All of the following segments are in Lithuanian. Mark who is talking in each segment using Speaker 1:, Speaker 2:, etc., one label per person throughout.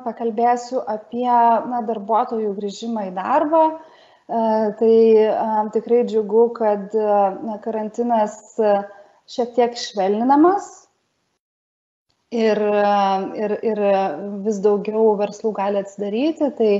Speaker 1: pakalbėsiu apie darbuotojų grįžimą į darbą. Tai tikrai džiugu, kad karantinas šiek tiek švelninamas ir vis daugiau verslų gali atsidaryti. Tai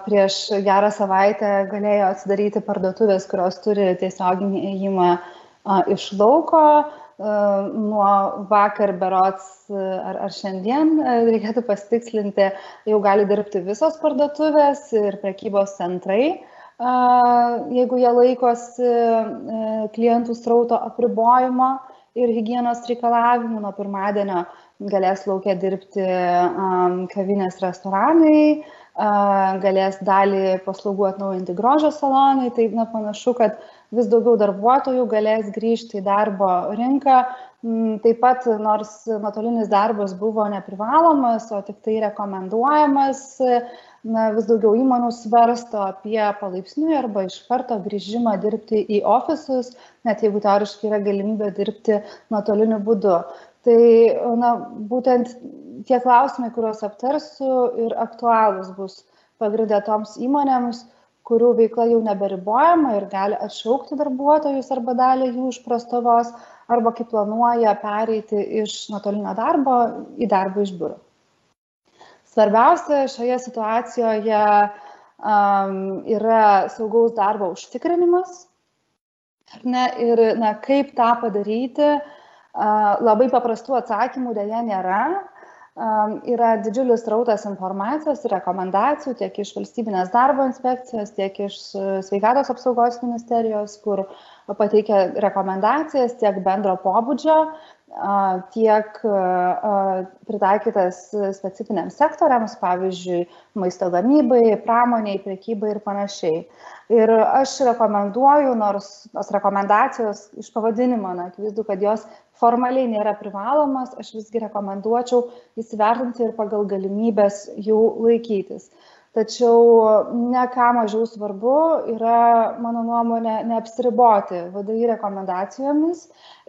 Speaker 1: prieš gerą savaitę galėjo atsidaryti parduotuvės, kurios turi tiesioginį ėjimą iš lauko. Nuo vakar berods ar šiandien, reikėtų pasitikslinti, jau gali dirbti visos parduotuvės ir prekybos centrai, jeigu jie laikosi klientų srauto apribojimo ir higienos reikalavimų. Nuo pirmadienio galės lauke dirbti kavinės, restoranai, galės dalį paslaugų atnaujinti grožio salonai. Tai panašu, kad vis daugiau darbuotojų galės grįžti į darbo rinką. Taip pat, nors nuotolinis darbas buvo neprivalomas, o tik tai rekomenduojamas, vis daugiau įmonių svarsto apie palaipsniui arba iš karto grįžimą dirbti į ofisus, net jeigu teoriškai yra galimybė dirbti nuotoliniu būdu. Tai būtent tie klausimai, kuriuos aptarsiu, ir aktualūs bus pagrinde toms įmonėms, kurių veikla jau neberibojama ir gali atšaukti darbuotojus arba dalį jų iš prastovos, arba kaip planuoja pereiti iš nuotolinio darbo į darbą iš biuro. Svarbiausia šioje situacijoje yra saugaus darbo užtikrinimas. Ir kaip tą padaryti, labai paprastų atsakymų dėja nėra. Yra didžiulis srautas informacijos ir rekomendacijų tiek iš Valstybinės darbo inspekcijos, tiek iš Sveikatos apsaugos ministerijos, kur pateikia rekomendacijas tiek bendro pobūdžio, tiek pritaikytas specifiniams sektoriams, pavyzdžiui, maisto gamybai, pramoniai, prekybai ir panašiai. Ir aš rekomenduoju, nors tos rekomendacijos iš pavadinimo, akivaizdu, kad jos formaliai nėra privalomas, aš visgi rekomenduočiau įsivertinti ir pagal galimybės jų laikytis. Tačiau ne ką mažiau svarbu yra, mano nuomonė, neapsiriboti VDI rekomendacijomis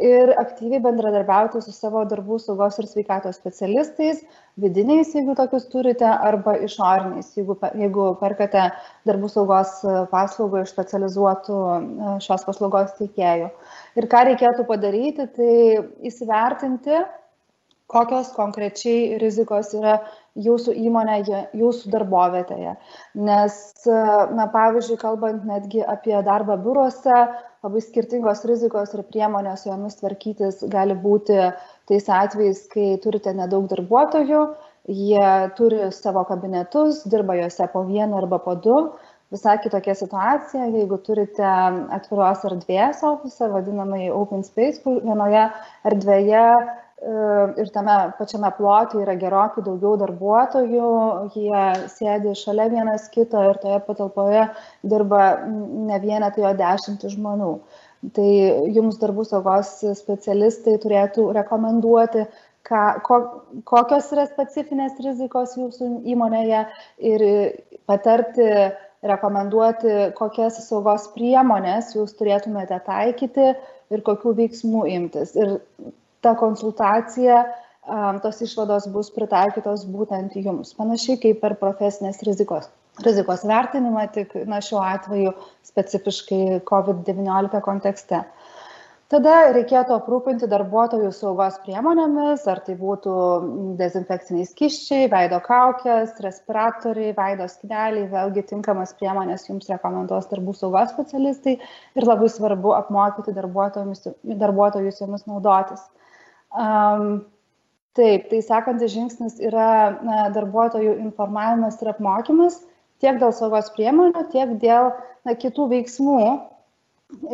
Speaker 1: ir aktyviai bendradarbiauti su savo darbų saugos ir sveikatos specialistais, vidiniais, jeigu tokius turite, arba išoriniais, jeigu perkate darbų saugos paslaugą iš specializuotų šios paslaugos teikėjų. Ir ką reikėtų padaryti, tai įsivertinti, kokios konkrečiai rizikos yra jūsų įmonėje, jūsų darbovietėje. Nes, pavyzdžiui, kalbant netgi apie darbą biuruose, labai skirtingos rizikos ir priemonės jomis tvarkytis gali būti tais atvejais, kai turite nedaug darbuotojų, jie turi savo kabinetus, dirba juose po vieną arba po du. Visai kitokia situacija, jeigu turite atviros erdvės ofisą, vadinamai open space, kur vienoje erdvėje ir tame pačiame plote yra gerokai daugiau darbuotojų, jie sėdi šalia vienas kito ir toje patalpoje dirba ne vienetai, o 10 žmonių. Tai jums darbų saugos specialistai turėtų rekomenduoti, kokios yra specifinės rizikos jūsų įmonėje ir patarti, rekomenduoti, kokias saugos priemonės jūs turėtumėte taikyti ir kokių veiksmų imtis. Ir ta konsultacija, tos išvados bus pritaikytos būtent jums. Panašiai kaip per profesinės rizikos vertinimą, tik šiuo atveju specifiškai COVID-19 kontekste. Tada reikėtų aprūpinti darbuotojų saugos priemonėmis, ar tai būtų dezinfekciniai skysčiai, veido kaukės, respiratoriai, veido skydeliai, vėlgi tinkamas priemonės jums rekomenduos darbų saugos specialistai ir labai svarbu apmokyti darbuotojus jomis naudotis. Taip, tai sekantis žingsnis yra darbuotojų informavimas ir apmokymas tiek dėl saugos priemonių, tiek dėl kitų veiksmų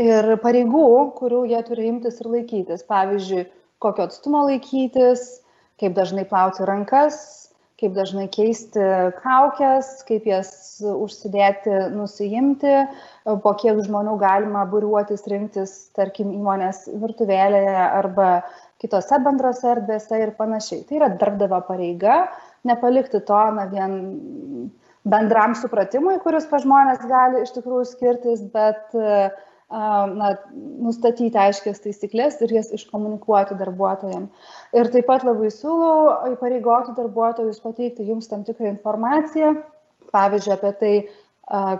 Speaker 1: ir pareigų, kurių jie turi imtis ir laikytis. Pavyzdžiui, kokio atstumo laikytis, kaip dažnai plauti rankas, kaip dažnai keisti kaukes, kaip jas užsidėti, nusiimti, po kiek žmonių galima būriuotis, rinktis, tarkim, įmonės virtuvėlėje arba kitose bendrose erdvėse ir panašiai. Tai yra darbdavio pareiga, nepalikti to vien bendram supratimui, kuris pas žmonės gali iš tikrųjų skirtis, bet nustatyti aiškias taisyklės ir jas iškomunikuoti darbuotojams. Ir taip pat labai siūlau įpareigoti darbuotojus pateikti jums tam tikrą informaciją, pavyzdžiui, apie tai,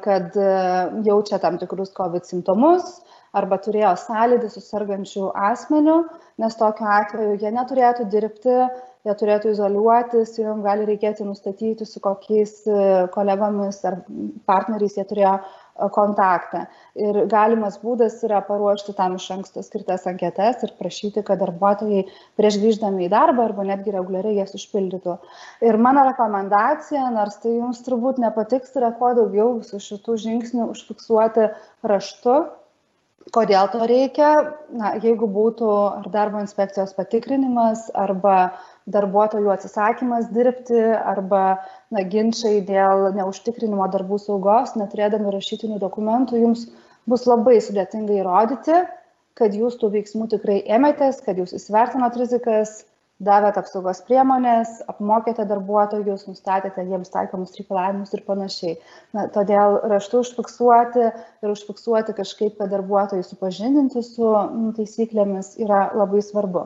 Speaker 1: kad jaučia tam tikrus COVID simptomus arba turėjo sąlytį su sergančiu asmeniu, nes tokiu atveju jie neturėtų dirbti, jie turėtų izoliuotis, jiems gali reikėti nustatyti, su kokiais kolegomis ar partneriais jie turėjo kontaktą. Ir galimas būdas yra paruošti tam iš anksto skirtas anketas ir prašyti, kad darbuotojai prieš grįždami į darbą arba netgi reguliariai jas užpildytų. Ir mano rekomendacija, nors tai jums turbūt nepatiks, yra kuo daugiau visų šitų žingsnių užfiksuoti raštu. Kodėl to reikia? Jeigu būtų ar darbo inspekcijos patikrinimas, arba darbuotojų atsisakymas dirbti, arba ginčai dėl neužtikrinimo darbų saugos, neturėdami rašytinių dokumentų, jums bus labai sudėtinga įrodyti, kad jūs tų veiksmų tikrai ėmėtės, kad jūs įsivertinot rizikas, davėt apsaugos priemonės, apmokėte darbuotojus, nustatėte jiems taikomus reikalavimus ir panašiai. Todėl raštu užfiksuoti kažkaip, kad darbuotojai supažindinti su taisyklėmis yra labai svarbu.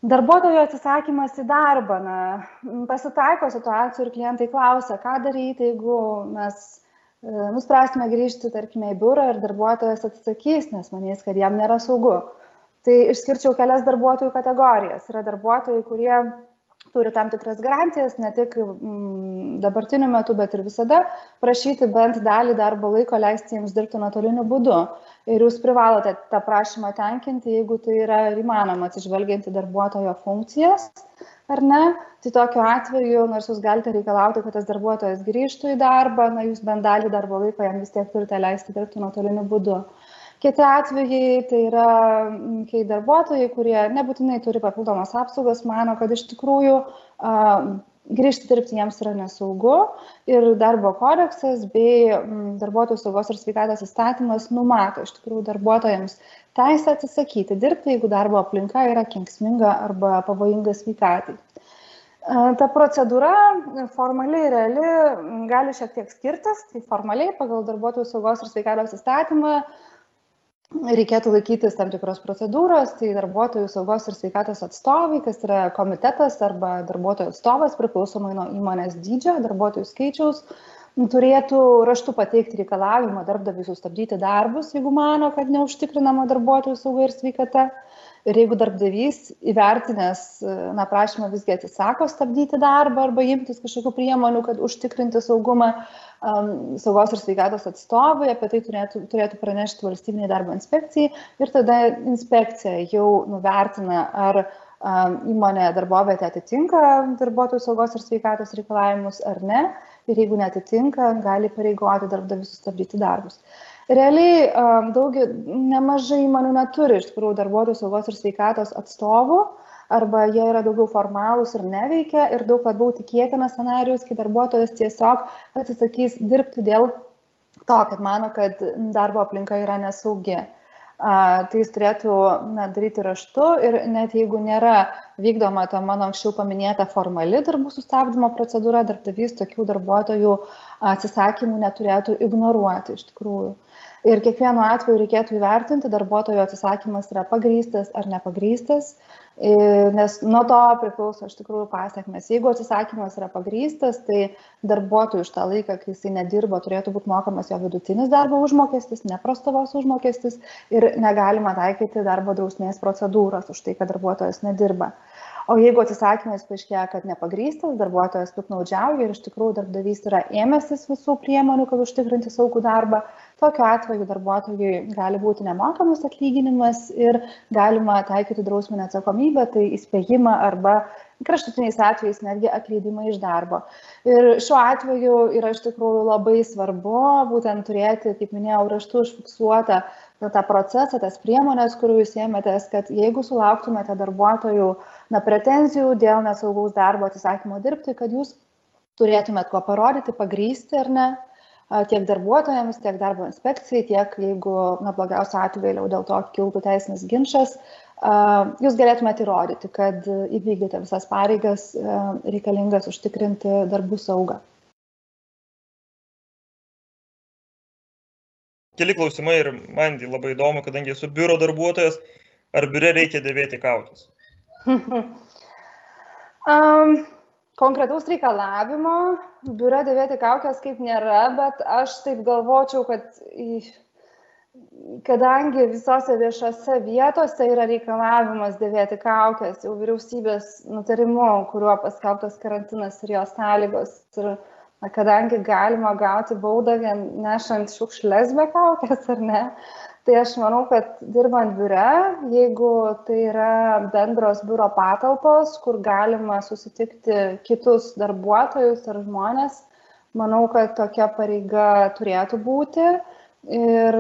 Speaker 1: Darbuotojų atsisakymas į darbą. Pasitaiko situacijų ir klientai klausia, ką daryti, jeigu mes nuspręsime grįžti, tarkime, į biurą ir darbuotojas atsisakys, nes manys, kad jam nėra saugu. Tai išskirčiau kelias darbuotojų kategorijas. Yra darbuotojai, kurie turi tam tikras garantijas, ne tik dabartiniu metu, bet ir visada prašyti bent dalį darbo laiko leisti jiems dirbti nuotoliniu būdu. Ir jūs privalote tą prašymą tenkinti, jeigu tai yra įmanoma atsižvelgiant į darbuotojo funkcijas, ar ne. Tai tokiu atveju, nors jūs galite reikalauti, kad tas darbuotojas grįžtų į darbą, jūs bent dalį darbo laiko jam vis tiek turite leisti dirbti nuotoliniu būdu. Kiti atvejai tai yra, kai darbuotojai, kurie nebūtinai turi papildomas apsaugas, mano, kad iš tikrųjų grįžti dirbti jiems yra nesaugu ir darbo kodeksas bei darbuotojų saugos ir sveikatos įstatymas numato iš tikrųjų darbuotojams teisę atsisakyti dirbti, jeigu darbo aplinka yra kenksminga arba pavojinga sveikatai. Ta procedūra formaliai ir reali gali šiek tiek skirtis, tai formaliai pagal darbuotojų saugos ir sveikatos įstatymą reikėtų laikytis tam tikros procedūros, tai darbuotojų saugos ir sveikatos atstovai, kas yra komitetas arba darbuotojų atstovas, priklausomai nuo įmonės dydžio, darbuotojų skaičiaus, turėtų raštu pateikti reikalavimą darbdaviui sustabdyti darbus, jeigu mano, kad neužtikrinama darbuotojų sauga ir sveikata. Ir jeigu darbdavys įvertinęs prašymą visgi atsisako stabdyti darbą arba imtis kažkokių priemonių, kad užtikrinti saugumą, saugos ir sveikatos atstovai apie tai turėtų pranešti valstybinei darbo inspekcijai ir tada inspekcija jau nuvertina, ar įmonė darbovietė atitinka darbuotojų saugos ir sveikatos reikalavimus ar ne. Ir jeigu neatitinka, gali pareigoti darbdavį sustabdyti darbus. Realiai nemažai įmonių neturi iš tikrųjų darbuotojų saugos ir sveikatos atstovų, arba jie yra daugiau formalūs ir neveikia ir daug labiau tikėtinas scenarijus, kai darbuotojas tiesiog atsisakys dirbti dėl to, kad mano, kad darbo aplinka yra nesaugi. Tai jis turėtų daryti raštu ir net jeigu nėra vykdoma ta mano anksčiau paminėta formali darbų sustabdymo procedūra, darbdavys tokių darbuotojų atsisakymų neturėtų ignoruoti iš tikrųjų. Ir kiekvienu atveju reikėtų įvertinti, darbuotojo atsisakymas yra pagrįstas ar nepagrįstas, nes nuo to priklauso iš tikrųjų pasekmės. Jeigu atsisakymas yra pagrįstas, tai darbuotojui už tą laiką, kai jisai nedirbo, turėtų būti mokamas jo vidutinis darbo užmokestis, ne prastovos užmokestis ir negalima taikyti darbo drausmės procedūros už tai, kad darbuotojas nedirba. O jeigu atsisakymas paaiškėja, kad nepagrįstas, darbuotojas piktnaudžiauja ir iš tikrųjų darbdavys yra ėmęsis visų priemonių, kad užtikrinti saugų darbą, tokiu atveju darbuotojui gali būti nemokamas atlyginimas ir galima taikyti drausminę atsakomybę, tai įspėjimą arba kraštutiniais atvejais netgi atleidimą iš darbo. Ir šiuo atveju yra iš tikrųjų labai svarbu būtent turėti, kaip minėjau, raštu užfiksuotą tą procesą, tas priemonės, kurių jūs ėmėtės, kad jeigu sulauktumėte darbuotojų pretenzijų dėl nesaugaus darbo atsisakymo dirbti, kad jūs turėtumėt ko parodyti, pagrįsti ar ne, tiek darbuotojams, tiek darbo inspekcijai, tiek jeigu blogiausio atveju vėliau dėl to kiltų teisinis ginčas, jūs galėtumėte įrodyti, kad įvykdėte visas pareigas reikalingas užtikrinti darbų saugą.
Speaker 2: keli klausimai ir man labai įdomu, kadangi esu biuro darbuotojas, ar biure reikia dėvėti kaukes?
Speaker 1: Konkretaus reikalavimo biure dėvėti kaukes kaip nėra, bet aš taip galvočiau, kad kadangi visose viešose vietose yra reikalavimas dėvėti kaukes, jau vyriausybės nutarimu, kuriuo paskelbtas karantinas ir jo sąlygos, ir kadangi galima gauti baudą vien nešant šiukšles be kaukės ar ne, tai aš manau, kad dirbant biure, jeigu tai yra bendros biuro patalpos, kur galima susitikti kitus darbuotojus ar žmonės, manau, kad tokia pareiga turėtų būti. Ir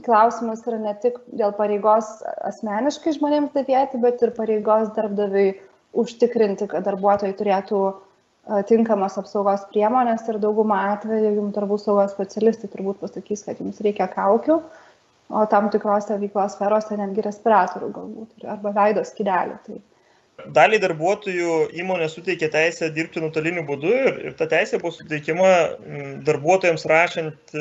Speaker 1: klausimas yra ne tik dėl pareigos asmeniškai žmonėms dėvėti, bet ir pareigos darbdaviui užtikrinti, kad darbuotojai turėtų tinkamos apsaugos priemonės ir daugumą atveju jums darbų saugos specialistai turbūt pasakys, kad jums reikia kaukių, o tam tikrose veiklos sferose netgi respiratorių galbūt, arba veido skydelių. Tai.
Speaker 2: Daliai darbuotojų įmonė suteikia teisę dirbti nuotoliniu būdu ir ta teisė buvo suteikiama darbuotojams rašant,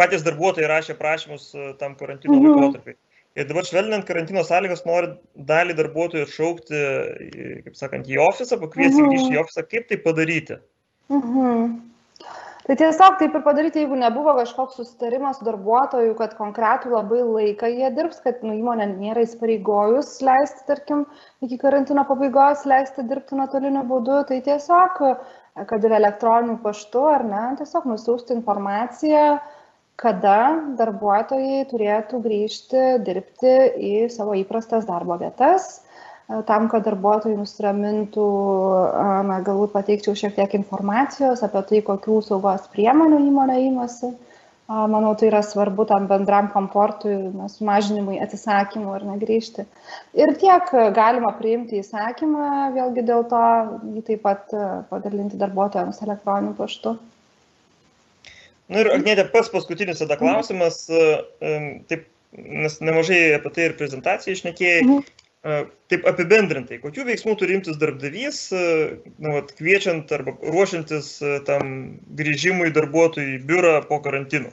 Speaker 2: patys darbuotojai rašė prašymus tam karantino laikotarpiai. Ir dabar švelninant karantino sąlygas nori dalį darbuotojų atšaukti, kaip sakant, į ofisą, pakviesti grįžti į ofisą. Kaip tai padaryti?
Speaker 1: Tai tiesiog taip ir padaryti, jeigu nebuvo kažkoks susitarimas su darbuotoju, kad konkretų labai laiką jie dirbs, kad įmonė nėra įsipareigojus leisti, tarkim, iki karantino pabaigos leisti dirbti nuotoliniu būdu, tai tiesiog, kad ir elektroniniu paštu ar ne, tiesiog nusiųsti informaciją, kada darbuotojai turėtų grįžti dirbti į savo įprastas darbo vietas. Tam, kad darbuotojai nusiramintų, galbūt pateikčiau šiek tiek informacijos apie tai, kokių saugos priemonių įmonė imasi. Manau, tai yra svarbu tam bendram komfortui, sumažinimui, atsisakymui ir negrįžti. Ir tiek galima priimti įsakymą, vėlgi dėl to jį taip pat padalinti darbuotojams elektroniniu paštu.
Speaker 2: Na ir Agnėte, pats paskutinis tada klausimas, taip, nes nemažai apie tai ir prezentacijai išnekėjai. Taip apibendrintai, kokių veiksmų turi imtis darbdavys, kviečiant arba ruošiantis tam grįžimui darbuotojų į biurą po karantino?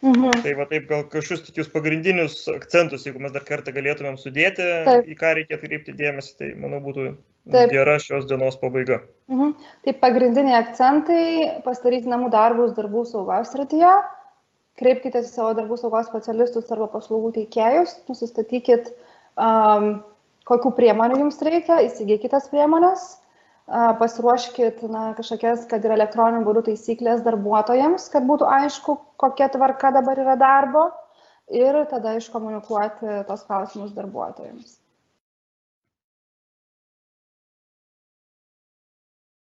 Speaker 2: Tai va taip gal kažkokius tokius pagrindinius akcentus, jeigu mes dar kartą galėtumėm sudėti, į ką reikėtų kreipti dėmesį, tai manau būtų gera šios dienos pabaiga.
Speaker 1: Taip, pagrindiniai akcentai - pasidaryti namų darbus darbų saugos srityje, kreipkite į savo darbų saugos specialistus arba paslaugų teikėjus, nusistatykit kokių priemonių jums reikia, įsigykite tas priemonės, pasiruoškit kažkokias, kad ir elektroniniu būdu taisyklės darbuotojams, kad būtų aišku, kokia tvarka dabar yra darbo ir tada iškomunikuoti tos klausimus darbuotojams.